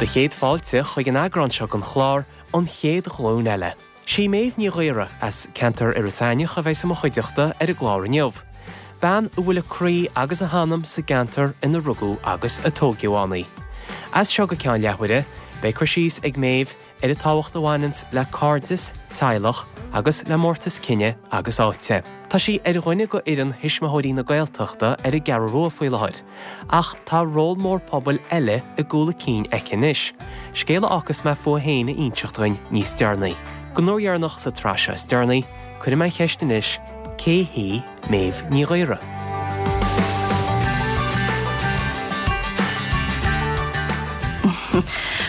Do chéad fáilte chuig an eagrán seo den chlár, An Chéad Ghlúin Eile. Sí Méabh Ní Ghaora as ceantar Iorras Aithneach a bheidh i mo chuideachta ar an gclár inniu. Bean a bhfuil a croí agus a hanam sa gceantar ina rugadh agus a tóigeadh ann í. As seo go ceann leathuaire, beidh cur síos ag Méabh ar an tábhacht a bhaineanns le cairdeas, teaghlach agus le mórtas cine agus áite. Tá sí ar dhuine de fhoireann Thuismitheoirí na Gaeltachta ar an gCeathrú Rua faoi láthair, ach tá ról mór pobail eile i gcúl a cinn aici anois, scéal a fhágfas mé fúithi féin a inseacht dhuinn níos deireanaí. Don uair dheireanach sa tsraith seo is deireanaí, cuirfidh mé an cheist anois, cé hí Méabh Ní Ghaora?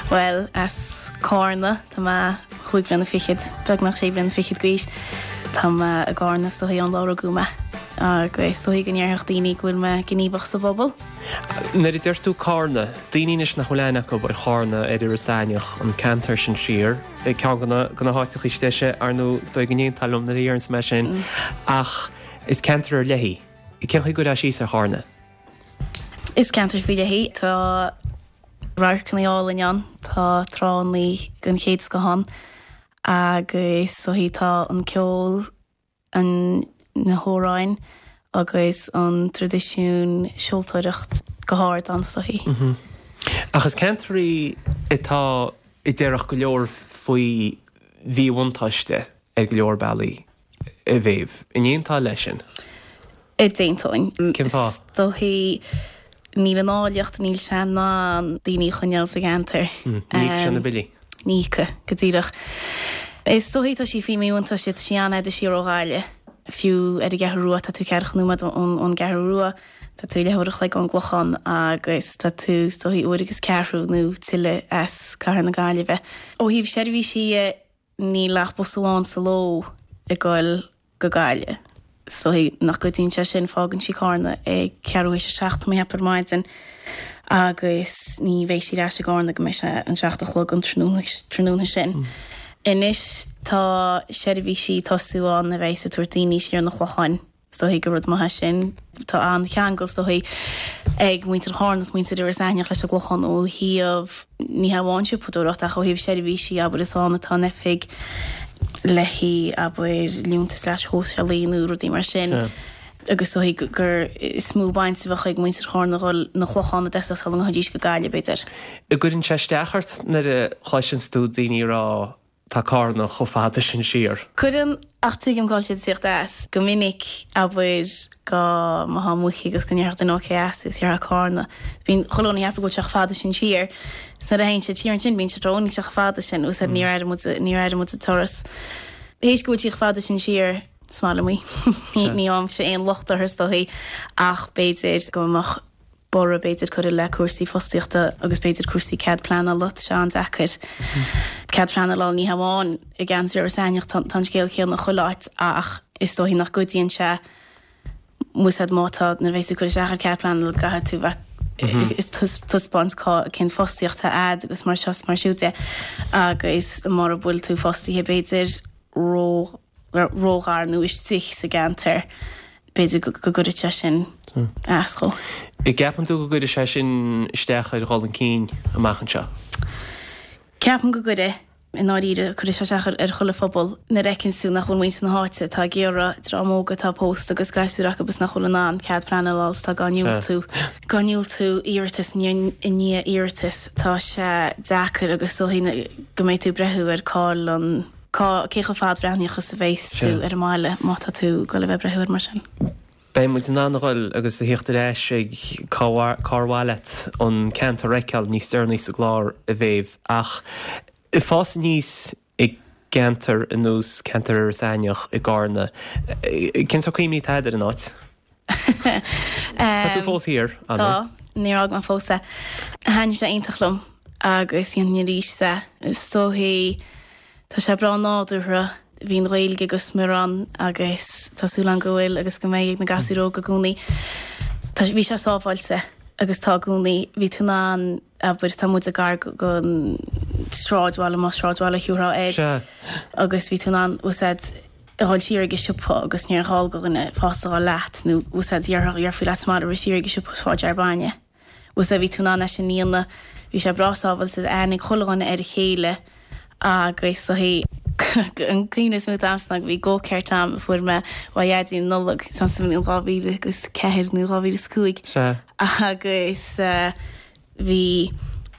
Bhuel, as Cárna, tá mé chúig bhliana fichead, beagnach sé bliana fichead d'aois. Tá mé i gCárna is dóichí ón lá a rugadh mé agus is dóichí go ndéarfadh daoine go bhfuil mé gníomhach sa bpobal. Nuair a deir tú Cárna, daoine anois nach bhfuil aithne acu ar Chárna, ar Iorras Aithneach, an ceantar sin siar, ceann de na háiteacha is deise, ar ndóigh, is dóigh go n-aontófá liom nuair a deireanns mé sin, ach is ceantar ar leith í. Cén chaoi a gcuirfeá síos ar Chárna? Is ceantar faoi leith í. Tá radharcanna álainn ann, tá tránna den chéad scoth ann agus is dóichí tá an ceol, an na hamhráin agus an traidisiún seoltóireacht go hard ann is dóichí. Ach is ceantar í atá a déarfadh go leor faoi mhíbhuntáiste ar go leor bealaí. A Mhéabh. An aontófá leis sin? D'aontóinn. Cén fáth? Is dóichí níl an áilleacht, níl sé in ann daoine a choinneáil sa gceantar. Ní íocfaidh sé na billí. Ní íocfaidh, go díreach. Is dóichí tá sí faoi mhíbhuntáiste, tá sí an-fhada siar ó Ghaillimh. Fiú ar an gCeathrú Rua, tá tú ceathracha nóiméad ón gCeathrú Rua, tá tú leathuair a chloig ón gClochán agus tá tú is dóichí uair agus ceathrú nó tuilleadh as Cathair na Gaillimhe. Ó thaobh seirbhísí dhe, Níl ach bus amháin sa ló ag goil go Gaillimh. Is dóichí nach gcuidíonn sé sin, fágann sí Cárna ag ceathrú théis a 7 tá mé ag ceapadh ar maidin agus ní bheidh sí ar ais i gCárna go mbeidh sé an 7 a chlog an tráthnóna sin. Anois tá seirbhísí ag tosú ann a bheidh ag tabhairt daoine siar 'na Chlocháin. Is dóichí gur rud maith é sin. Tá an-cheangal, is dóichí, ag muintir Chárna is muintir Iorras Aithneach leis an gClochán ó thaobh, ní hamháin siopadóireacht ach ó thaobh seirbhísí, abair, is ann atá an oifig le haghaidh, abair, liúntas leasa shóisialaigh nó rudaí mar sin. Agus is dóichí gur is mó baint a bheadh ag muintir Chárna a dhul 'na Clochán i dtosach sula ngabhfaidís go Gaillimh, b'fhéidir. An gcuireann sé isteach ort nuair a chloiseanns tú daoine ag rá Tá Cárna chomh fada sin siar. Cuireann, ach tuigim cá bhfuil siad ag tíocht as. Go minic, abair, go mbeifeá amuigh agus go ndéarfadh duine ó cé as thú, is déarfá Cárna. Bíonn chuile dhuine ag ceapadh go bhfuil sé chomh fada sin siar. Is nuair a théann siad siar ansin bíonn siad ag rá, ó níl sé chomh fada sin. Úsáid, níor airigh muid, níor airigh muid an turas. Théis go bhfuil sí chomh fada sin siar, is maith liom í. Ní fhaighimse aon locht uirthi is dóichí, ach b'fhéidir go mbeadh borradh b'fhéidir curtha le cúrsaí fostaíochta agus b'fhéidir cúrsaí cead pleanála, tá sé an-deacair cead pleanála a fháil, ní hamháin i gceantar Iorras Aithneach, tá an scéal céanna chuile áit ach is dóichí nach gcuidíonn sé úsáid má tá, nuair a bheas tú ag cur isteach ar cead pleanála caithfidh tú bheith ag taispeáint cá cén fostaíocht atá a'd agus mar seo is mar siúd de agus mura bhfuil tú fostaithe b'fhéidir ró róghar nó istigh sa gceantar, b'fhéidir go gcuirfeadh sé sin as dhó. An gceapann tú go gcuirfidh sé sin isteach ar dhul chun cinn amach anseo? Ceapaim go gcuirfidh. I ndáiríre, cuirfidh sé isteach ar chuile phobal. Nuair a fheiceann tú nach bhfuil muintir na háite atá ag iarraidh, dream óg atá pósta agus gasúir acu is nach bhfuil in ann cead pleanála a fháil is atá dhá ndiúltú, dhá ndiúltú iarratas i ndiaidh iarratais, tá sé deacair agus is dóichí go mbeidh tú ag breathú ar cá'il an. Cá, cé chomh fadbhreathnaíoch is a bheas tú ar an mbaile má tá tú ag dul a bheith ag breathú air mar sin? Beidh muid in ann a dhul agus a thíocht ar ais ag cár mhaith leat an ceantar a fheiceáil níos deireanaí sa gclár, a Mhéabh. Ach ag fás aníos i gceantar ar nós ceantar Iorras Aithneach i gCárna, cén sórt cuimhní atá agat ar an áit? Tá tú fós thiar, an Tá, níor fhág mé fós é. Thaitnigh sé iontach liom agus dhéanfainn arís é. Is dóichí, tá sé breá nádúrtha, bhí an Ghaeilge go smior ann agus tá súil agam go bhfuil agus go mbeidh ag na gasúir óga i gcónaí. Tá, bhí sé sábháilte agus tá i gcónaí. Bhí tú in ann, abair, tá muid gar don sráidbhaile, más sráidbhaile a thiúrfá air, agus bhí tú in ann úsáid, a dhul siar ag an siopa agus níor ghá do dhuine fásta a dhul leat nó úsáid dhéarfaí leat sa mbaile rith siar ag an siopa is fáil jar bainne. Úsáid bhí tú in ann é sin a dhéanamh. Bhí sé breá sábháilte, aithne ag chuile dhuine ar a chéile agus is dóichí an cuimhne is mó atá a'msa ná go bhí go-kart a'm a fuair mé ó Dhaidí an Nollaig sa mbliain 2004 nó 2005 agus bhí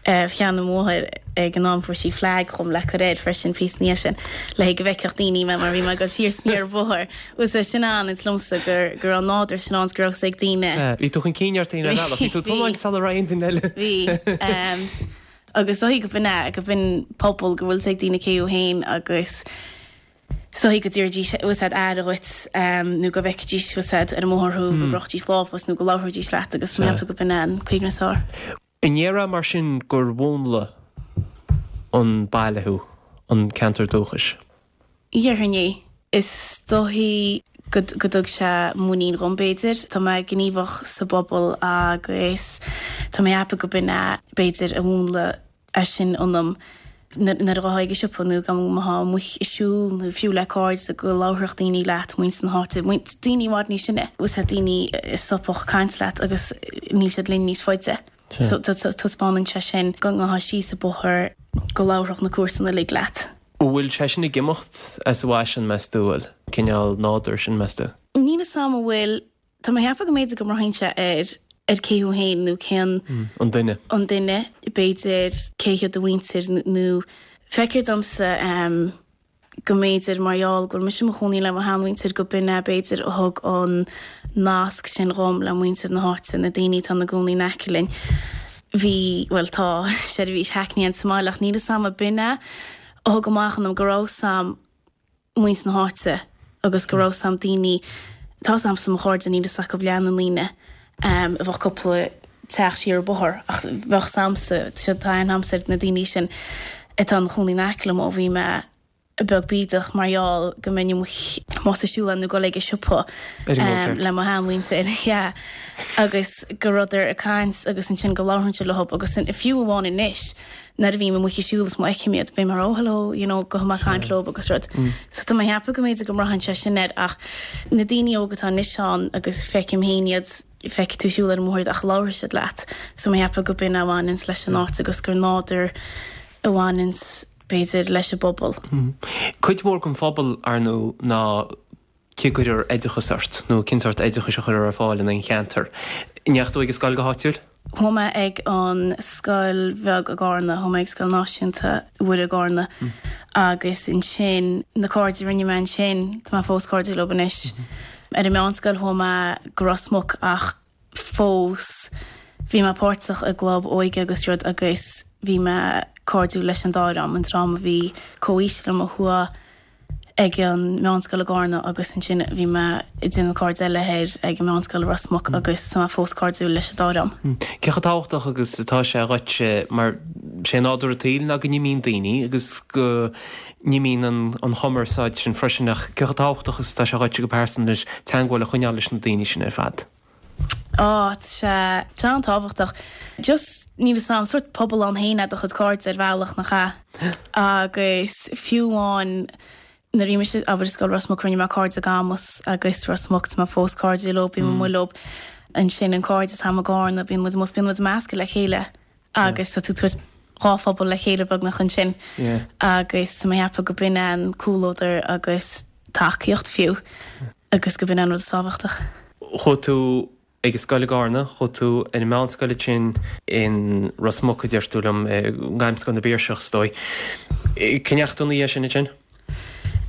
sheana mháthair ag an am fuair sí flag dhom le cur air freisin píosa ina dhiaidh sin le go bhfeicfeadh daoine mé mar bhí mé ag dul siar 's aniar an bóthar. Bhuel sea sin an is liomsa gur go raibh an nádúr sin ann 's go raibh 's ag daoine. Bhí tú chun cinn ort féin ar bhealach, bhí tú ag tiomáint sula raibh aon duine eile. Bhí. Agus is dóichí go b'in é, go b'in pobal go bhfuil 's ag daoine cé thú féin agus is dóichí go dtabharfaidís bhfuil 's a'd aire dhuit nó go bhfeicfidís bhfuil 's a'd ar an mbóthar thú, go gcrochfaidís lámh dhuit nó go labhróidís leat agus tá mé ag ceapadh go b'in é an cuimhne is fearr. An ndéarfá mar sin gur mhúnlaigh an baile thú, an ceantar dúchais? Dhéarfainn é. Is dóichí go dtug sé muinín dhom, b'fhéidir. Tá mé gníomhach sa bpobal agus tá mé ag ceapadh go b'in é, b'fhéidir, a mhúnlaigh é sin ionam. Nuair a ghabhfá ag an siopa nó go mbeifeá amuigh ag siúl nó fiú le cairde go labharfadh daoine leat, muintir na háite, daoine i bhfad níos sine, bhfuil 's a'd, daoine a stopfadh ag caint leat agus níl siad linn níos faide. So taispeánann sé sin go ngabhfá síos an bóthar go labharfadh na comharsana uilig leat. An bhfuil sé sin ag imeacht as an bhfaisean, meas tú, an bhfuil? Cineál nádúr sin, meas tú? Níl 'fhios a'm an bhfuil. Tá mé ag ceapadh go mb'fhéidir go mbraitheann sé ar ar cé thú féin nó cén. An duine. An duine, b'fhéidir, cé hiad do mhuintir nó feictear domsa go mb'fhéidir mar gheall go bhfuil mise i mo chónaí le mo sheanmhuintir go b'in é b'fhéidir a thug an nasc sin dhom le muintir na háite, na daoine atá ina gcónaí in aice linn. Bhí, bhuel tá, seirbhís hackney ann sa mbaile ach níl 'fhios a'm an b'in é a thug amach ionam go raibh 'fhios a'm muintir na háite agus go raibh 'fhios a'm daoine, tá 'fhios a'msa mo chairde níl 'fhios acu leath na ndaoine a bheadh cúpla teach siar an bóthar ach bheadh 'fhios a'msa, tá aithne a'msa ar na daoine sin atá ina chónaí in aice liom ó bhí mé beag bídeach mar gheall go mbeinn amuigh más ag siúl nó ag dul ag an siopa le mo sheanmhuintir yeah agus go rabhadar ag caint agus ansin go labhraínnse leo agus fiú amháin anois nuair a bhím amuigh ag siúl is má fheicim iad bím mar oh hello you know gabhfaidh mé ag caint leo agus rud. So tá mé ag ceapadh go mb'fhéidir go mbraitheann sé sin air ach na daoine óga atá anois ann agus feicim féin iad feicfidh tú ag siúl ar an mbóthar ach labharfaidh siad leat so mé ag ceapadh go b'in a bhaineanns leis an áit agus gur nádúr a bhaineanns b'fhéidir, leis an bpobal. Cuid mhór den phobal, ar ndóigh, ná cé gcuirtear oideachas ort, nó cén sórt oideachais a chuirtear ar fáil in aon cheantar. An ndeachaigh tú ag an scoil go háitiúil? Chuaigh mé ag an scoil bheag i gCarna, chuaigh mé ag Scoil Náisiúnta Mhuire i gCarna agus ansin na cairde a rinne mé ansin, tá mé fós cairdiúil leo anois. Ar an meánscoil chuaigh mé go Ros Muc ach fós. Bhí mé páirteach i gclub óige agus rud agus bhí mé cairdiúil leis an dá dhream, an dream a bhí comhaois liom a chuaigh ag an meánscoil i gCarna agus ansin bhí mé ag déanamh cairde eile thoir ag an meánscoil i Ros Muc agus tá mé fós cairdiúil leis an dá dhream. Cé chomh tábhachtach agus atá sé dhuit mar sé nádúr an tsaoil ná go n-imíonn daoine agus go n-imíonn an chumarsáid sin freisin ach cé chomh tábhachtach is atá sé dhuit go pearsanta anois teagmháil a choinneáil leis na daoine sin ar fad? Á, tá sé, tá sé an-tábhachtach. Just, níl 'fhios a'm, sórt pobal ann féin é do chuid cairde ar bhealach, nach ea? Agus fiú amháin nuair a bhí mise, abair, i Scoil Ros Muc, rinne mé cairde i gCamus agus Ros Muc, tá mé fós cairdiúil leo, bím amuigh leo. Ansin an cairde atá a'm i gCarna, bíonn muid amuigh, bíonn muid measctha le chéile agus tá tú ag tabhairt dhá phobal le chéile beagnach ansin agus tá mé ag ceapadh go b'in é an comhluadar agus tacaíocht fiú. agus go b'in an rud is tábhachtach. Chuaigh tú ag an scoil i gCarna, chuaigh tú ar an meánscoil ansin in Ros Muc, a deir tú liom, i nGairmscoil na bPiarsach, is dóigh. Cá ndeachaigh tú ina dhiaidh sin ansin?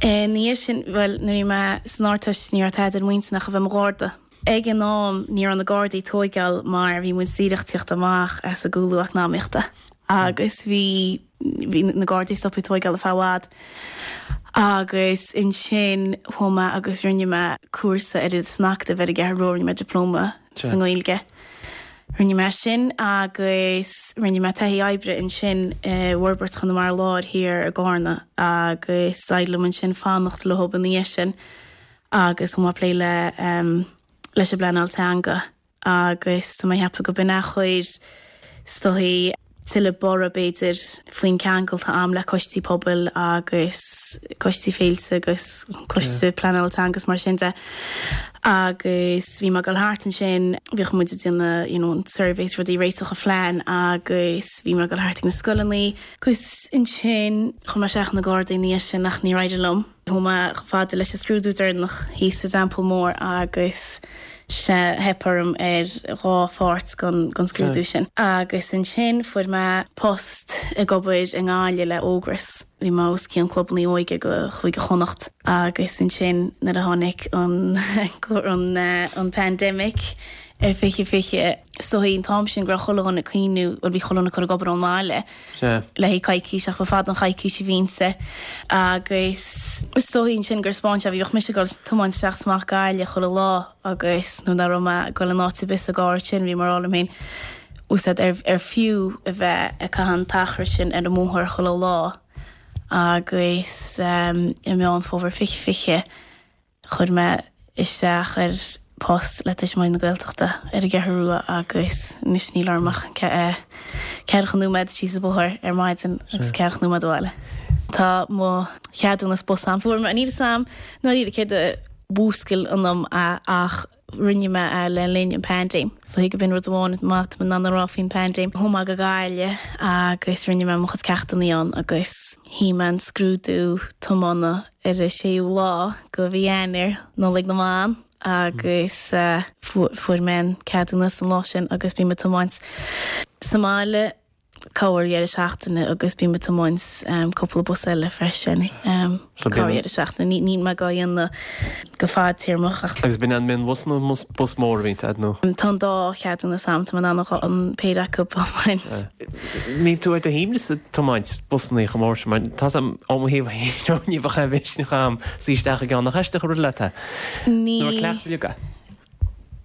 Ina dhiaidh sin, bhuel, nuair a bhí mé san Ardteist ní raibh tada ar m'intinn ach a bheith i mo Gharda. Ag an am ní raibh na Gardaí ag tóigeáil mar bhí muid díreach ag tíocht amach as an gcúlú eacnamaíochta agus bhí, bhí na Gardaí stoptha ag tóigeáil ar feadh i bhfad agus ansin chuaigh mé agus rinne mé cúrsa ar san Acadamh ar an gCeathrú Rua, rinne mé dioplóma sa nGaeilge. Rinne mé sin agus rinne mé taithí oibre ansin i bhForbairt Chonamara Láir thiar i gCarna agus d'éirigh liom ansin fanacht leo ina dhiaidh sin agus chuaigh mé ag plé le leis an bpleanáil teanga. agus tá mé ag ceapadh go b'in é a chuir is dóichí tuilleadh borradh b'fhéidir faoin ceangal atá a'm le coistí pobail agus coistí féilte agus coiste pleanála teanga is mar sin de. Agus bhí mé ag dul thart ansin, bhíodh muid ag déanamh you know an surveys rudaí réiteach an phlean agus bhí mé ag dul thart ag na scoileanna agus ansin chuir mé isteach na Gardaí ina dhiaidh sin ach níor éirigh liom. Chuaigh mé chomh fada leis an scrúdú deireanach thíos sa Teampall Mór agus sea theip orm ar dhá pháirt den scrúdú sin. Agus ansin fuair mé post ag obair i nGaillimh le Ógras. Bhí mé os cionn clubanna óige go Chúige Chonnacht. Agus ansin nuair a tháinig an an pandemic i 2020, is dóichí an t-am sin go raibh chuile dhuine ag cuimhniú, bhuel bhí chuile dhuine ag cur ag obair ón mbaile. Sea. le haghaidh coicís ach ba fada an choicís a bhí inti agus is dóichí ansin gur 'spáin sé, bhíodh mise ag dul tiomáint isteach is amach Gaillimh chuile lá agus nuair nach raibh mé ag dul in áit ar bith sa gcarr sin bhí mé ag rá liom féin úsáid ar ar fiú a bheith ag caitheamh an t-achar sin ar an mbóthar chuile lá agus i Meán Fómhair 2020 Chuir mé isteach ar post le Tuismitheoirí na Gaeltachta ar an gCeathrú Rua agus anois níl orm ach ceathracha nóiméad síos an bóthar ar maidin agus ceathracha nóiméad abhaile. Tá mo cheadúnas bus a'm. Fuair mé, níl 'fhios a'm i ndáiríre céard a mhúscail ionam é ach rinne mé é le linn an paindéim. So thig b'in rud amháin maith atá mé in ann a rá faoin paindéim. Chuaigh mé go Gaillimh agus rinne mé mo chuid ceachtanna ann agus shuigh mé an scrúdú tiomána ar an séú lá de mhí Eanáir, Nollaig na mBan, agus fuair mé an ceadúnas an lá sin agus bím ag tiomáint sa mbaile corrdheireadh seachtaine agus bím ag tiomáint cúpla bus eile freisin corrdheireadh seachtaine. Níl mé dhá dhéanamh go fadtéarmach ach. Agus b'in an mionbhus nó bus mór a bhíonns a'd nó? Tá an dá cheadúnas a'm, tá mé in ann an péire acu a thiomáint. Mbíonn tú ar do shuaimhneas ag tiomáint busannaí chomh mór sin mar tá's a'm ó mo thaobh féin ní bheadh aon mhisneach a'm suí isteach i gceann nach aisteach an rud leat é? Ní. Nó ar cleachtadh uilig é?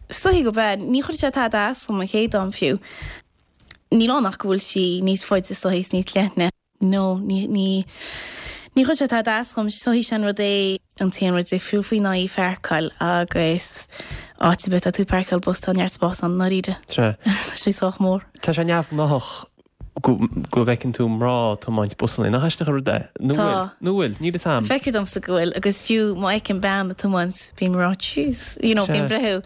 Is dóichí gurb ea. Ní chuir sé tada as dom an chéad am fiú. Níl ann ach go bhfuil sí níos faide is dóichí is níos leithne. No, ní, ní, ní chuir sé tada as dhom. Is dóichí sé an rud é an t-aon rud difriúil faoi ná í a pháirceáil agus áit ar bith atá tú ag páirceáil bus tá neart spás ann, i ndáiríre. Sea. Tá sé sách mór. Tá sé neamhghnáthach go, go bhfeiceann tú mná ag tiomáint busanna. Nach aisteach an rud é? Nó Tá. bhfuil? Nó bhfuil? Níl fhios a'm. Feictear domsa go bhfuil agus fiú má fheicim bean ag tiomáint bím ag rá jeez, you know, Sea. bím ag breathnú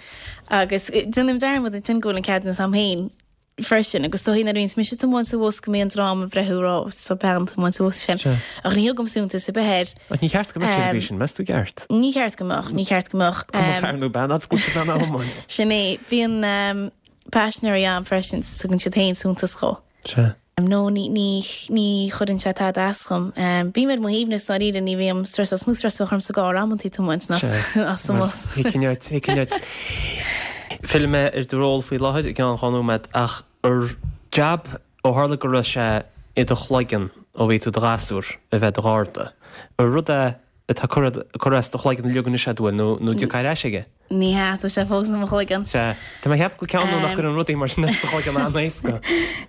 agus déanaim dearmad ansin go bhfuil an ceadúnas a'm féin. freisin agus is dóichí nuair a bhíonns mise ag tiomáint sa bhus go mbíonn dream ag breathnú ag rá tá bean ag tiomáint sa bhus sin. Sea. Ach ní thugaim suntas ar bith air. Ach ní cheart go mbeadh sé ar an gcaoi sin, meas tú gceart? Ní cheart go mbeadh, ní cheart go mbeadh. Cuma fear nó bean, fhad is go bhfuil siad in ann a thiomáint. Sin é. Bíonn paisinéirí ann freisin, tugann siad féin suntas dhó. Sea. No, ní, ní, ní chuireann sé tada as dhom. Bím ar mo shuaimhneas dáiríre, ní bhím stressed, is mó stress a bheadh orm sa gcarr amantaí tiomáint ná sa mbus. Thuigfinn duit, thuigfinn duit. Fillfidh mé ar do ról faoi láthair i gceann dhá nóiméad ach ar jab ó tharla go raibh sé i do chloigeann ó bhí tú i do ghasúr a bheith i do gharda, ar rud é atá curtha as do chloigeann uilig anois agat bhfuil nó nó dtiocfá ar ais aige? Ní hea, tá sé fós i mo chloigeann. Sea. Tá mé ag ceapadh go ceann nó nach gcuireann rudaí mar sin as do chloigeann an-éasca.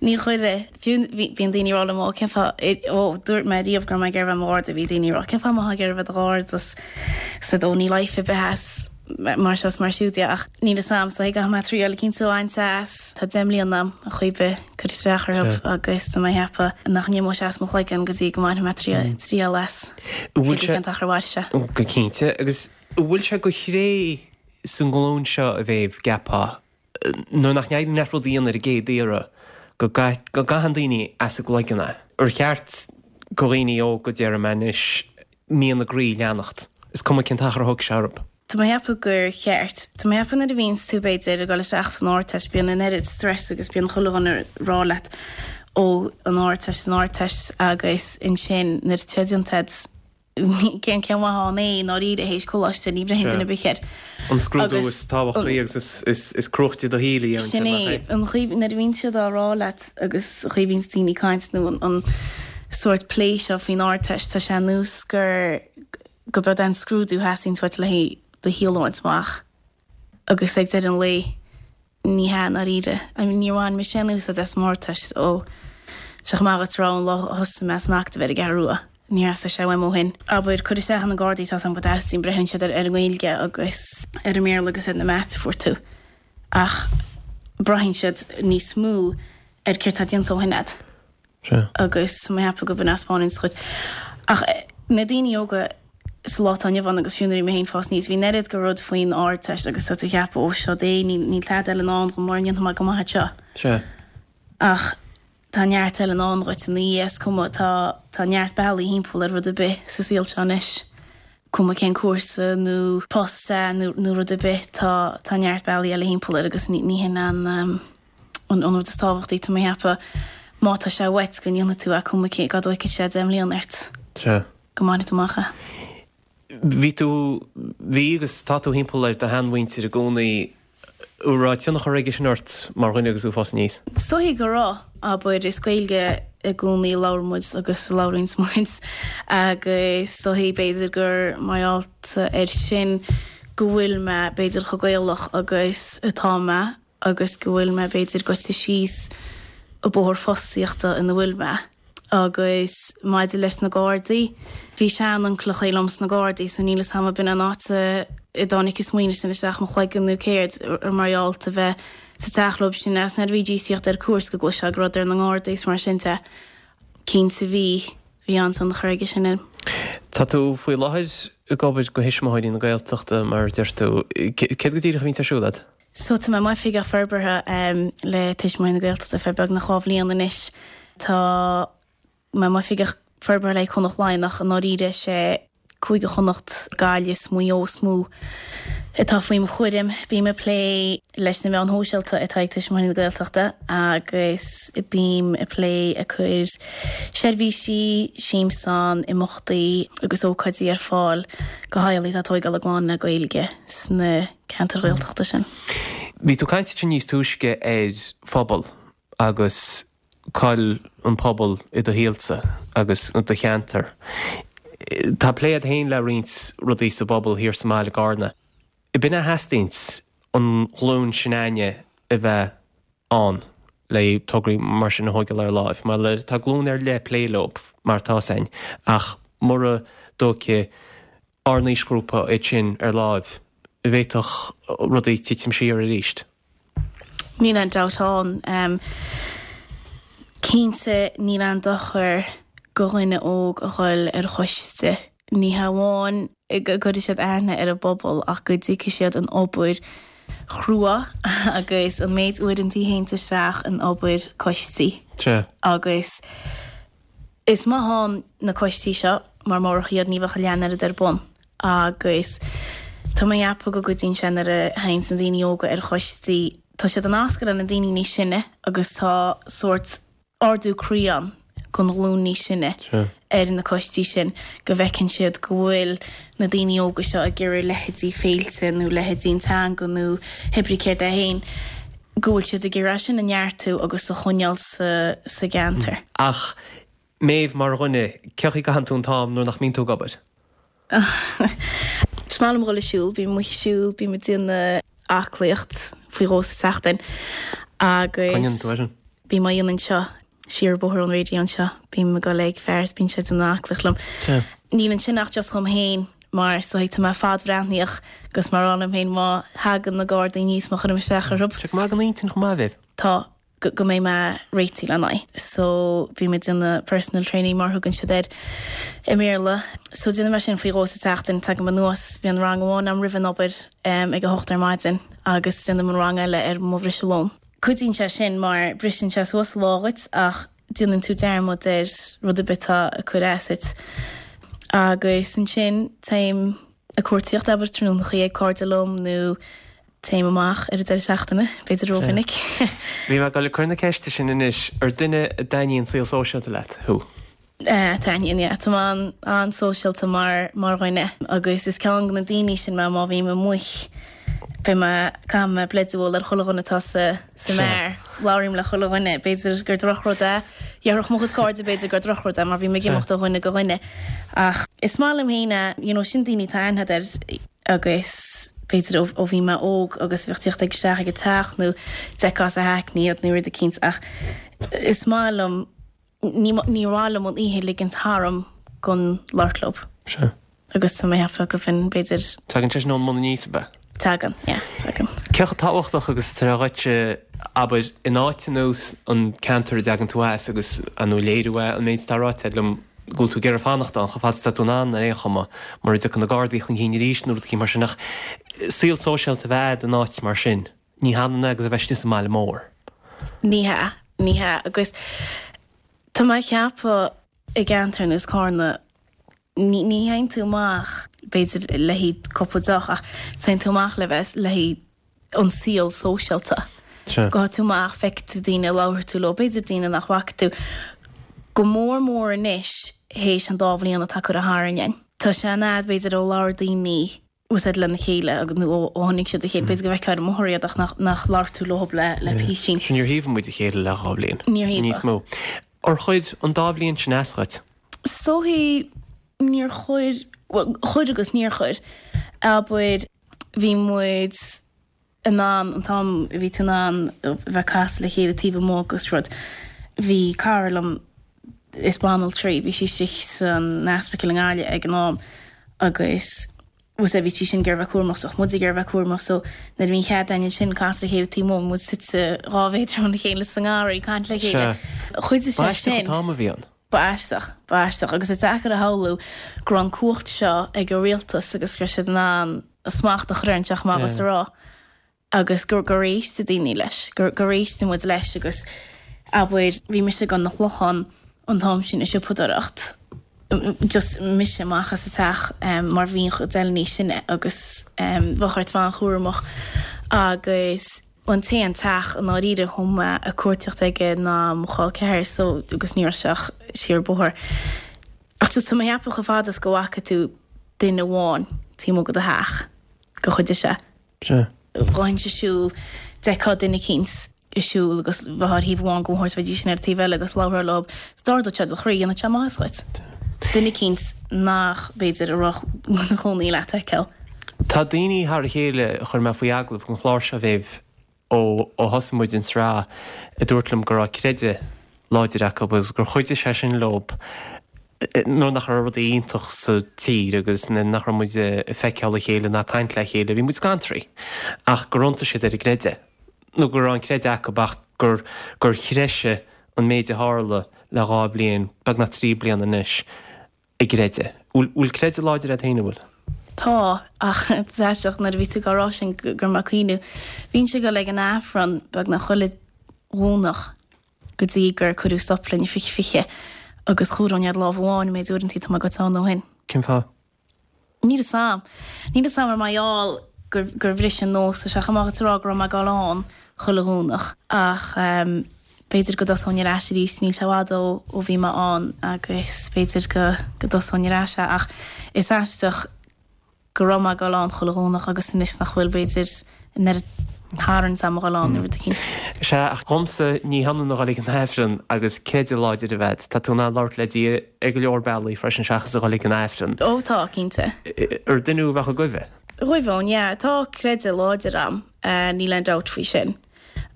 Ní chuireann. Fiú bíonn daoine ag rá liom, ó cén fáth, ó dúirt mé riamh go raibh mé ag iarraidh a bheith i mo gharda, bhí daoine ag rá cén fáth a mbeifeá ag iarraidh a bheith i do gharda is said ó níl life ar bith as mar seo is mar siúd de ach níl fhios a'm so caithfidh mé triail eicínt a bhaint as. Tá 10 mbliana a'm ar chaoi ar bith cur isteach orthu agus tá mé ag ceapadh nach n-imeoidh sé as mo chloigeann go dtí go mbainfidh mé triail as. An bhfuil sé. Cén t-achar a mhairfidh sé. Go cinnte agus An bhfuil sé de thréith sa nglúin seo a Mhéabh, gceapfá, nuair nach n-éiríonn leat rud a dhéanamh ar an gcéad iarraidh, go gcaitheann daoine as a gcloigeann é? Ar cheart go dhaoine óga, déarfaidh mé anois, mian a gcroí a leanacht, is cuma cén t-achar a thógfaidh sé orthu? Tá mé ag ceapadh gur cheart. Tá mé ag ceapadh nuair a bhíonns tú, b'fhéidir, ag dul isteach san Ardteist, bíonn an oiread stress agus bíonn chuile dhuine ag rá leat, ó, an Ardteist, an Ardteist agus ansin nuair atá déanta agat, Cén cén mhaith ann é i ndáiríre théis coláiste, ní bhraitheann duine ar bith air. An scrúdú is tábhachtaí agus is cruachtaí do shaol a dhéanann Sin é, an chaoi, nuair a bhíonn siad á rá leat agus an chaoi a bhíonns daoine ag caint nó an sórt plé seo faoin Ardteist, tá sé ar nós gur, go b'eod é an scrúdú a theastaíonn uait le haghaidh do shaol a bhaint amach agus ag deireadh an lae, Ní hea, i ndáiríre. I mean, níor bhain mise aon úsáid as m'Ardteist ó tá sé chomh maith duit a rá ón lá a thosaigh mé san Acadamh ar an gCeathrú Rua. Níor theastaigh sé uaim ó shin. Abair, cur isteach ar na Gardaí, tá's agam go dteastaíonn, braitheann siad ar ar an nGaeilge agus ar an mBéarla agus ar na Maths a fuair tú. Ach braitheann siad níos mó ar céard tá déanta ó shin agat. Sea. Agus tá mé ag ceapadh go b'in a thaispeánann dhuit. Ach na daoine óga. Sa lá atá inniu ann agus fiú nuair a bhí mé féin ag fás aníos, bhí an oiread de rud faoin Ardteist agus tá tú ag ceapadh, ó seo é, níl tada eile i ndán dhom mura ndéanfaidh mé go maith anseo. Sea. Ach tá neart eile i ndán dhuit ina dhiaidh, is cuma, tá, tá neart bealaí thimpeall ar rud ar bith sa saol seo anois. Cuma cén cúrsa nó post é nó, nó rud ar bith, tá, tá neart bealaí eile thimpeall air agus ní, ní hin an, an, an rud is tábhachtaí, tá mé ag ceapadh, má tá sé uait go ndéanfaidh tú é, cuma cé, cá dtóigfidh sé 10 mbliana ort. Sea. go mbainfidh tú amach é. Bhí tú, bhí agus tá tú thimpeall ar do sheanmhuintir i gcónaí. An raibh tionchar aige sin ort mar dhuine agus tú ag fás aníos? Is dóichí go raibh. Abair, is Gaeilge i gcónaí a labhair muid agus a labhraíonns muid agus is dóichí b'fhéidir gur mar gheall air sin go bhfuil mé b'fhéidir chomh Gaelach agus atá mé agus go bhfuil mé b'fhéidir goite síos an bóthar fostaíochta ina bhfuil mé. Agus maidir leis na Gardaí, bhí sean-uncaileachaí liom sna Gardaí so níl 'fhios a'm ab in an áit a dtáinig an smaoineamh sin isteach mo chloigeann nó céard, mar gheall a bheith sa teach leob sin agus nuair a bhídís ag tíocht ar cuairt go gcloisfeá go rabhadar na nGardaí is mar sin de. Cinnte bhí, bhí an-tionchar aige sin orm. Tá tú faoi láthair ag obair do Thuismitheoirí na Gaeltachta mar a deir tú. Céard go díreach a bhíonns ar siúl agat? So tá mé i m'oifigeach forbartha le Tuismitheoirí na Gaeltachta ar feadh beagnach 2 bhliain anois. Tá mé i m'oifigeach forbartha le Cúnant Laighean ach i ndáiríre is é Cúige Chonnacht, Gaillimh is Maigh Eo is mó atá faoi mo chúram. Bím ag plé leis na meáin shóisialta atá ag Tuismitheoirí na Gaeltachta agus bím ag plé ag cur seirbhísí, siamsán, imeachtaí agus ócáidí ar fáil do theaghlaigh atá ag tóigeáil a gclann le Gaeilge sna ceantair Ghaeltachta sin. Bhí tú ag caint ansin níos túisce ar phobal agus cá'il an pobal i do shaolsa agus i do cheantar. Tá plé agat féin le roinnt rudaí sa bpobal thiar sa mbaile i gCarna. B'in a theastaíonns an ghlúin sin againne a bheith ann le tograí mar sin a thóigeáil ar láimh. Mar tá glúin ar leith ag plé leo mar atá 'fhios a'inn ach mura dtóigfidh ár n-aoisghrúpa iad sin ar láimh, bhféadfadh rudaí titim siar arís. Níl aon dabht ann. Cinnte níl aon dochar go dhuine óg a dhul ar choiste. Ní hamháin go gcuirfidh siad aithne ar an bpobal ach go dtuigfidh siad an obair chrua agus an méid uaireanta a théanns isteach in obair coistí. Sea. Agus. Is maith ann na coistí seo mar murach iad ní bheadh a leath an oiread ar bun agus tá mé ag ceapadh go gcuidíonn sé nuair a théanns na daoine óga ar choistí, tá siad ag nascadh le na daoine níos sine agus tá sórt ardú croí ann don ghlúin níos sine ar na coistí sin go bhfeiceann siad go bhfuil na daoine óga seo ag iarraidh leithéidí féilte nó leithéidí an teanga nó hé brí céard é féin. go bhfuil siad ag iarraidh sin a neartú agus a choinneáil sa gceantar. Ach Méabh, mar dhuine, cén chaoi a gcaitheann tú an t-am nuair nach mbíonn tú ag obair? Is maith liom dhul ag siúl, bím amuigh ag siúl, bím ag déanamh aclaíocht faoi dhó sa tseachtain agus. Cá ndéanann tú é sin? Bím á dhéanamh anseo. Siar an bóthar ón raidió anseo. Bím ag dul ag fear is bíonn sé ag déanamh aclaíocht liom. Sea. Níl ansin ach just dhom féin mar is dóigh tá mé fadbhreathnaíoch agus mar a rá liom féin má thagann na Gardaí aníos má chuirim isteach orthu. Tá sé go maith don intinn chomh maith, a Mhéabh. Tá. Go go mbeidh mé réitithe lena aghaidh. So bím ag déanamh personal training mar a thugann siad air i mBéarla. So déanaim é sin faoi dhó sa tseachtain. Tagaim anuas, bíonn rang amháin agam roimh an obair ag a hocht ar maidin agus déanaim an rang eile ar mo bhriseadh lóin. Cuidíonn sé sin mar briseann sé suas an lá dhuit ach déanann tú dearmad ar rud ar bith atá ag cur as duit. Agus ansin téim ag cuartaíocht, abair, tráthnónachaí ag cairde liom nó téim amach ar an deireadh seachtaine, b'fhéidir rómhinic. Bhí mé ag dul ag cur na ceiste sin anois, ar duine a dtaitníonn saol sóisialta leat thú? Taitníonn, yeah. Tá mé an-sóisialta mar mar dhuine agus is ceann de na daoine sin mé má bhím amuigh beidh mé, caithfidh mé bleid a bhualadh ar chuile dhuine atá sa sa mbeár. Labhraím le chuile dhuine. B'fhéidir gur drochrud é. Dhéarfadh mo chuid cairde b'fhéidir gur drochrud é mar bím ag imeacht ó dhuine go dhuine. Ach is maith liom féin é, you know, sin daoine atá aithne agat air agus b'fhéidir ó ó bhí mé óg agus bheadh tíocht ag isteach ag an teach nó d'fheicfeá sa hackney iad nó rud eicínt ach is maith liom Ní mhaith liom an oíche a ligint tharam gan labhairt leo. Sea. Agus tá mé ag ceapadh go bhfinn, b'fhéidir. Tagann sé sin ón mbun aníos, ab ea? Tagann, yeah, tagann. Cé chomh tábhachtach agus atá sé dhuit, abair, in áit ar nós an ceantar a dtagann tú as agus, ar ndóigh, léiriú é an méid atá ráite agat liom. go bhfuil tú ag iarraidh fanacht ann chomh fada is atá tú in ann ar aon chuma, mura dtiocfaidh na Gardaí chun cinn arís nó rud eicínt mar sin ach saol sóisialta a bheith a'd in áit mar sin, ní hionann é agus a bheith istigh sa mbaile mór. Ní hea, ní hea agus tá mé ag ceapadh i gceantar ar nós Carna, ní ní théann tú amach b'fhéidir le haghaidh cúpla deoch ach téann tú amach le bheith le haghaidh an saol sóisialta. Gabhfaidh tú amach, feicfidh tú daoine, labharfaidh tú leo, b'fhéidir daoine nach bhfaca tú, go mór mór anois théis an dá bhliain atá curtha tharainn againn. Tá sé an fhad b'fhéidir ó labhair daoine úsáid lena chéile agus nó ó chonaic siad a chéile, b'fhéidir go bhfeicfeá ar an mbóthar iad ach nach nach labhair tú leo le le písín. Sea, níor thaobhaigh muid a chéile le dhá bhliain. Níor thaobhaigh. Níos mó. Ar chuir an dá bhliain sin as dhuit? Is dóichí níor chuir, bhuel, chuir agus níor chuir. Abair, bhí muid in ann, an t-am a bhí tú in ann a bheith ag casadh le chéile taobh amuigh agus rud, bhí cara liom, is banaltra í, bhí sí istigh san ospidéal i nGaillimh ag an am agus bhfuil a fhios agat bhí sí sin ag iarraidh a bheith cúramach so bhí muid ag iarraidh a bheith cúramach so nuair a bhí an chead againn ansin casadh le chéile taobh amuigh, bhí muid suite dhá mhéadar óna chéile sa ngarraí ag caint le chéile. Chuidigh sé sin. Ba aisteach an t-am a bhí ann. Ba aisteach, ba aisteach agus is deacair a shamhlú go raibh an cumhacht seo ag an rialtas agus go raibh siad in ann smacht a chur orainn, seo amach is a rá. agus gur gur éist daoine leis, gur gur éist muid leis agus abair bhí mise ag dul 'na Chlochán an t-am sin ag siopadóireacht, just mise amach as an teach mar bhí an chuid eile níos sine agus bheadh ort bheith an-chúramach agus an t-aon teach i ndáiríre a chuaigh mé ag cuartaíocht aige ná mo chol ceathar so agus ní raibh sé ach siar bóthar. Ach just tá mé ag ceapadh chomh fada is go bhfaca tú duine amháin taobh amuigh de do theach gur chuidigh sé. Sea. Ghabhfainnse ag siúl, d'fheicfeá duine eicínt ag siúl agus bheifeá ar thaobh amháin den bhóthar is bheidís sin ar an taobh eile agus labharfá leo, is d'ardódh sé do chroí, dhéanfadh sé maitheas dhuit. Duine eicínt nach, b'fhéidir, a raibh ina chónaí leat a fheiceáil. Tá daoine thar a chéile a chuir mé faoi agallamh don chlár seo, a Mhéabh, ó thosaigh muid an tsraith, a dúirt liom go raibh creideamh láidir acu agus gur chuidigh sé sin leo nuair nach raibh rudaí iontach sa tír agus nuair nach raibh muid ag feiceáil a chéile ná ag caint le chéile, bhí muid scantraithe ach gur iontaigh siad ar an gcreideamh nó go raibh an creideamh acu ach gur gur threisigh an méid a tharla le dhá bhliain, beagnach trí bliana anois. a gcreideamh. Bhfuil creideamh láidir agat féin, an bhfuil? Tá, ach is aisteach nuair a bhí tú ag rá sin go raibh mé ag cuimhniú. Bhínnse ag dul ag an Aifreann beagnach chuile Dhomhnach go dtí gur cuireadh stop linn i 2020 agus chomhaireoinn ar lámh amháin an méid uaireanta atá mé gaibhte ann ó shin. Cén fáth? Níl 'fhios a'm. Níl 'fhios a'm ar mar gheall gur gur bhris an nós, tá sé chomh maith duit a rá go raibh mé ag dul ann chuile Dhomhnach ach b'fhéidir go dtosóinn ar ais arís, níl sé i bhfad ó ó bhí mé ann agus b'fhéidir go go dtosóinn ar ais é ach is aisteach go raibh mé ag dul ann chuile Dhomhnach agus anois nach bhfuil b'fhéidir an oiread tarraingt a'm a dhul ann nó rud eicínt. Sea, ach dhomsa ní hionann a dhul ag an Aifreann agus creideamh láidir a bheith a'd. Tá tú in ann labhairt le Dia ar go leor bealaí freisin seachas a dhul ag an Aifreann. Ó tá, cinnte. Ar duine thú a bheadh ag goimhe? Ghoibhfinn, yeah. Tá creideamh láidir a'm, níl aon dabht faoi sin.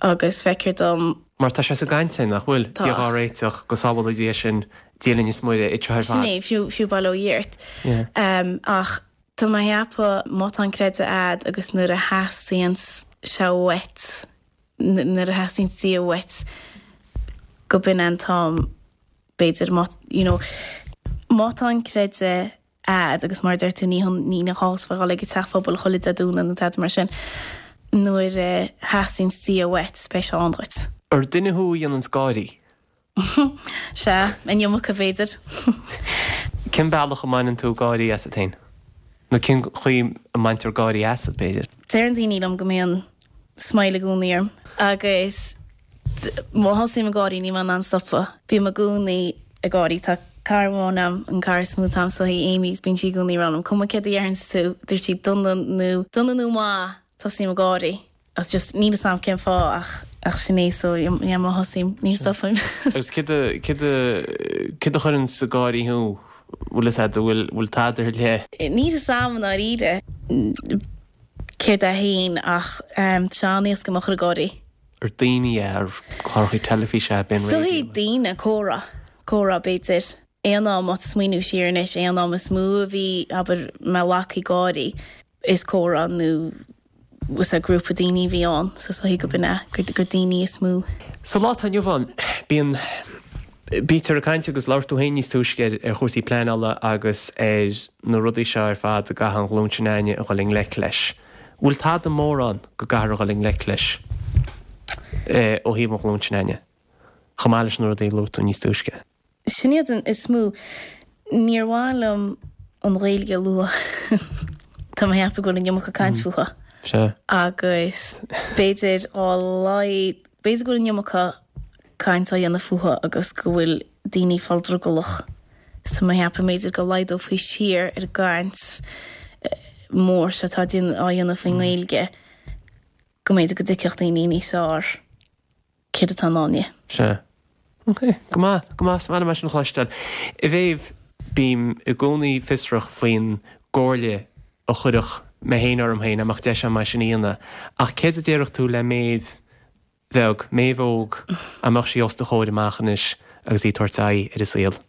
Agus feictear dom. Mar tá sé sa gcaint sin, nach bhfuil? Tá. Dia dhár réiteach, go sábhála Dia sinn, Dia linn is Muire, iad seo ar fad. Sin é, fiú, fiú bail ó Dhia ort. Yeah. Ach tá mé ag ceapadh má tá an creideamh a'd agus nuair a theastaíonn sé uait, nuair a theastaíonn Dia uait, go b'in é an t-am, b'fhéidir, má, you know, má tá an creideamh a'd agus mar a deir tú ní ní gá a bheith ag dul ag an teach phobail chuile Dé Domhnaigh nó tada mar sin. Nuair a theastaíonn Dia uait beidh sé ann dhuit. Ar duine thú a dhéananns gáirí? Sea, an iomarca b'fhéidir. Cén bealach a mbaineann tú gáirí asat féin? Nó cén chaoi a mbaintear gáirí asat, b'fhéidir? Deireann daoine liom go mbíonn smile i gcónaí orm agus Má thosaím ag gáirí níl mé in ann stopadh. Bím i gcónaí ag gáirí. Tá cara amháin a'm, an cara is mó atá a'm is í Amy, bíonn sí i gcónaí ag rá liom, cuma céard a deireanns tú, dúirt sí dona nó dona nó maith, tosaím ag gáirí. Agus just níl 'fhios a'm cén fáth ach ach sin é so yeah má thosaím ní stopaim. Agus céard a céard a céard a chuireanns ag gáirí thú? Bhfuil fhios a'd, bhfuil bhfuil tada ar leith? Níl 'fhios a'm i ndáiríre. Céard é féin ach tá sé an-éasca mé a chur ag gáirí. Ar daoine é, ar cláracha teilifíse é, b'in Is dóichí daoine, comhrá, comhrá b'fhéidir. Aon am, má tá smaoineamh siar anois, aon am is mó a bhí, abair, mé lagtha ag gáirí, is comhrá nó is grúpa daoine a bhí ann, so is dóichí go b'in é, gur daoine is mó. Sa lá atá inniu ann, bíonn. Bítear ag caint agus labhair tú féin níos túisce ar ar chúrsaí pleanála agus ar na rudaí seo ar fad a gcaithfidh an ghlúin sin againne a dhul i ngleic leis. Bhfuil tada mór ann go gcaithfear a dhul i ngleic leis ó thaobh an ghlúin sin againne, chomh maith leis na rudaí a luaigh tú níos túisce? Sin iad an is mó. Níor mhaith liom an Ghaeilge a lua. Tá mé ag ceapadh go bhfuil an iomarca caint fúithi. Sea. Agus b'fhéidir á laghad, b'fhéidir go bhfuil an iomarca caint á dhéanamh fúithi agus go bhfuil daoine ag fáil drogallach. So mé ag ceapadh b'fhéidir go laghdófaí siar ar an gcaint mór seo atá á dhéanamh faoin nGaeilge, go mb'fhéidir go dtuigfeadh daoine níos fearr céard atá i ndán di. Sea. Ok. Go maith, go maith. Is maith liom é sin a chloisteáil. A Mhéabh, bím i gcónaí fiosrach faoin gcomhairle a chuirfeadh mé féin orm féin, dá mbeadh deis agam é sin a dhéanamh. Ach céard a déarfadh tú le Méabh bheag, Méabh óg, dá mbeadh sí os do chomhair amach anois agus í ag tabhairt aghaidh ar an saol?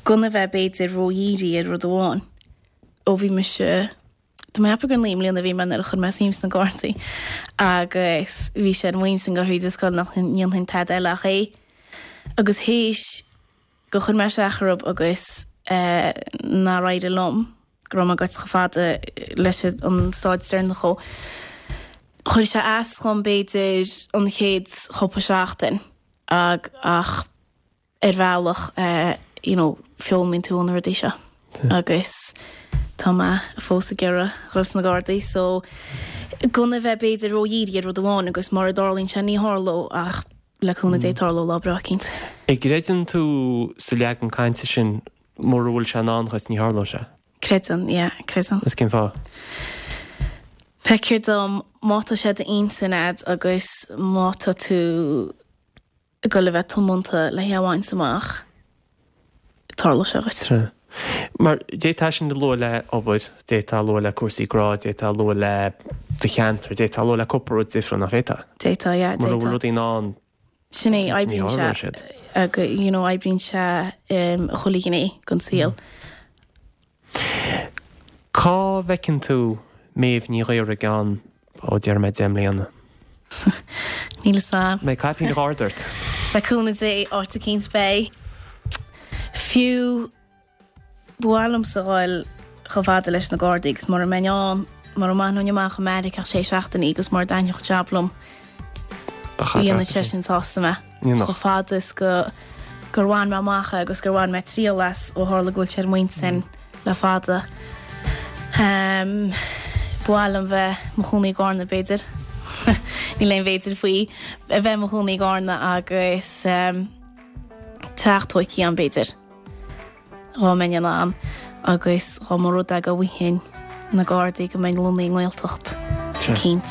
Gan a bheith b'fhéidir ró-dhírithe ar rud amháin. Ó bhí mise Tá mé ag ceapadh gur 9 mbliana a bhí mé nuair a chuir mé suim sna Gardaí agus bhí sé ar m'intinn ag dul thríd an scoil nach ndéanfainn tada eile ach é. Agus théis gur chuir mé isteach orthu agus nár éirigh liom, go raibh mé gaibhte chomh fada leis an stáid deireanach dhó, chuir sé as dhom b'fhéidir an chéad chúpla seachtain ach ar bhealach you know foghlaimíonn tú ó na rudaí seo agus tá mé fós ag iarraidh dhul sna Gardaí so gan a bheith b'fhéidir ró-dhírithe ar rud amháin agus mura dtarlaíonn sé ní tharlóidh ach le cúnamh Dé tarlóidh lá breá eicínt. An gcreideann tú sa leagan cainte sin mura bhfuil sé i ndán dhuit ní tharlóidh sé? Creideann, yeah, creideann. Is cén fáth? Feictear dom má tá sé d'intinn a'd agus má tá tú ag dul a bheith tiomanta le hé a bhaint amach, tarlóidh sé dhuit. Sea. Mar d'fhéadfá sin a lua le obair, d'fhéadfá a lua le cúrsaí grá, d'fhéadfá a lua le do cheantar, d'fhéadfá a lua le cúpla rud difriúil, nach bhféadfá? D'fhéadfá, yeah, d'fhéadfá. Mura bhfuil rudaí i ndán, Sin é, oibríonn sé, you know, oibríonn sé chuile ghné den saol. Cá bhfeiceann tú Méabh Ní Ghaora i gceann, ó, déarfaidh mé 10 mbliana? Níl fhios a'm. Mbeidh caipín Gharda ort? Le cúnamh Dé, áit eicínt beidh. Fiú, ba mhaith liomsa dhul chomh fada leis na Gardaí agus mura mbeinn ann, mura mbainfinn amach i Meiriceá ach sé seachtainí agus mura dtaitneodh jab liom, dhéanfadh sé sin sásta mé. Chomh fada is go gur bhain mé amach é agus gur bhain mé triail as ó tharla go bhfuil sé ar m'intinn le fada. Ba mhaith liom bheith mo chónaí i gCarna b'fhéidir. Níl aon bh'fhéidir faoi. A bheith mo chónaí i gCarna agus teach tóigthe ann b'fhéidir. Dhá mbeinn in ann agus dhá mba rud é go bhfaighinn na Gardaí go mbeinn lonnaithe i nGaeltacht eicínt.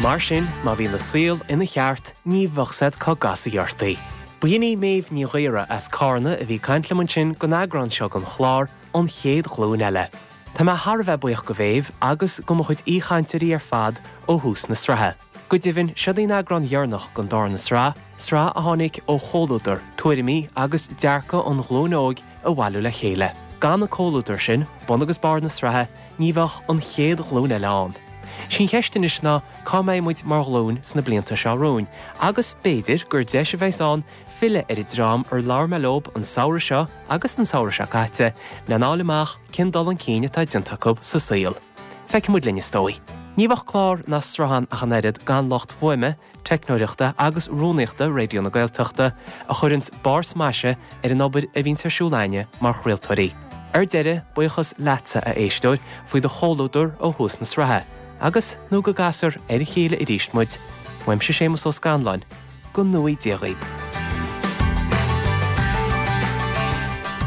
Mar sin, má bhíonn an saol ina cheart, ní bheadh 's a'd cá gcasfaí ort í. B'in í Méabh Ní Ghaora as Cárna a bhí ag caint liom ansin don eagrán seo den chlár, An Chéad Ghlúin Eile. Tá mé thar a bheith buíoch go Mhéabh agus go mo chuid aoichainteoirí ar fad ó thús na sraithe. Go deimhin, seod í an eagrán dheireanach den darna sraith, sraith a tháinig ó chomhluadar, tuairimí agus dearcadh an ghlúin óig a bhailiú le chéile. Gan an comhluadar sin, bun agus barr na sraithe, ní bheadh an chéad ghlúin eile ann. Sí an cheist anois ná cá mbeidh muid mar ghlúin sna blianta seo romhainn agus b'fhéidir gur deis a bheas ann filleadh ar an dream ar labhair mé leob an samhradh seo agus an samhradh seo caite lena fháil amach cén dul chun cinn atá déanta acu sa saol. Feicfidh muid linn is dóigh. Ní bheadh clár ná sraith ann ach an oiread gan lucht fuaime, teicneoireachta agus rúnaíochta Raidió na Gaeltachta a chuireanns barr smaise ar an obair a bhíonns ar siúl a'inne mar chraoltóirí. Ar deireadh, buíochas leatsa, a éisteoir, faoi do chomhluadar ó thús na sraithe, agus nó go gcasfar ar a chéile arís muid, uaimse Séamus Ó Scanláin, Go ngnóthaí Dia dhaoib.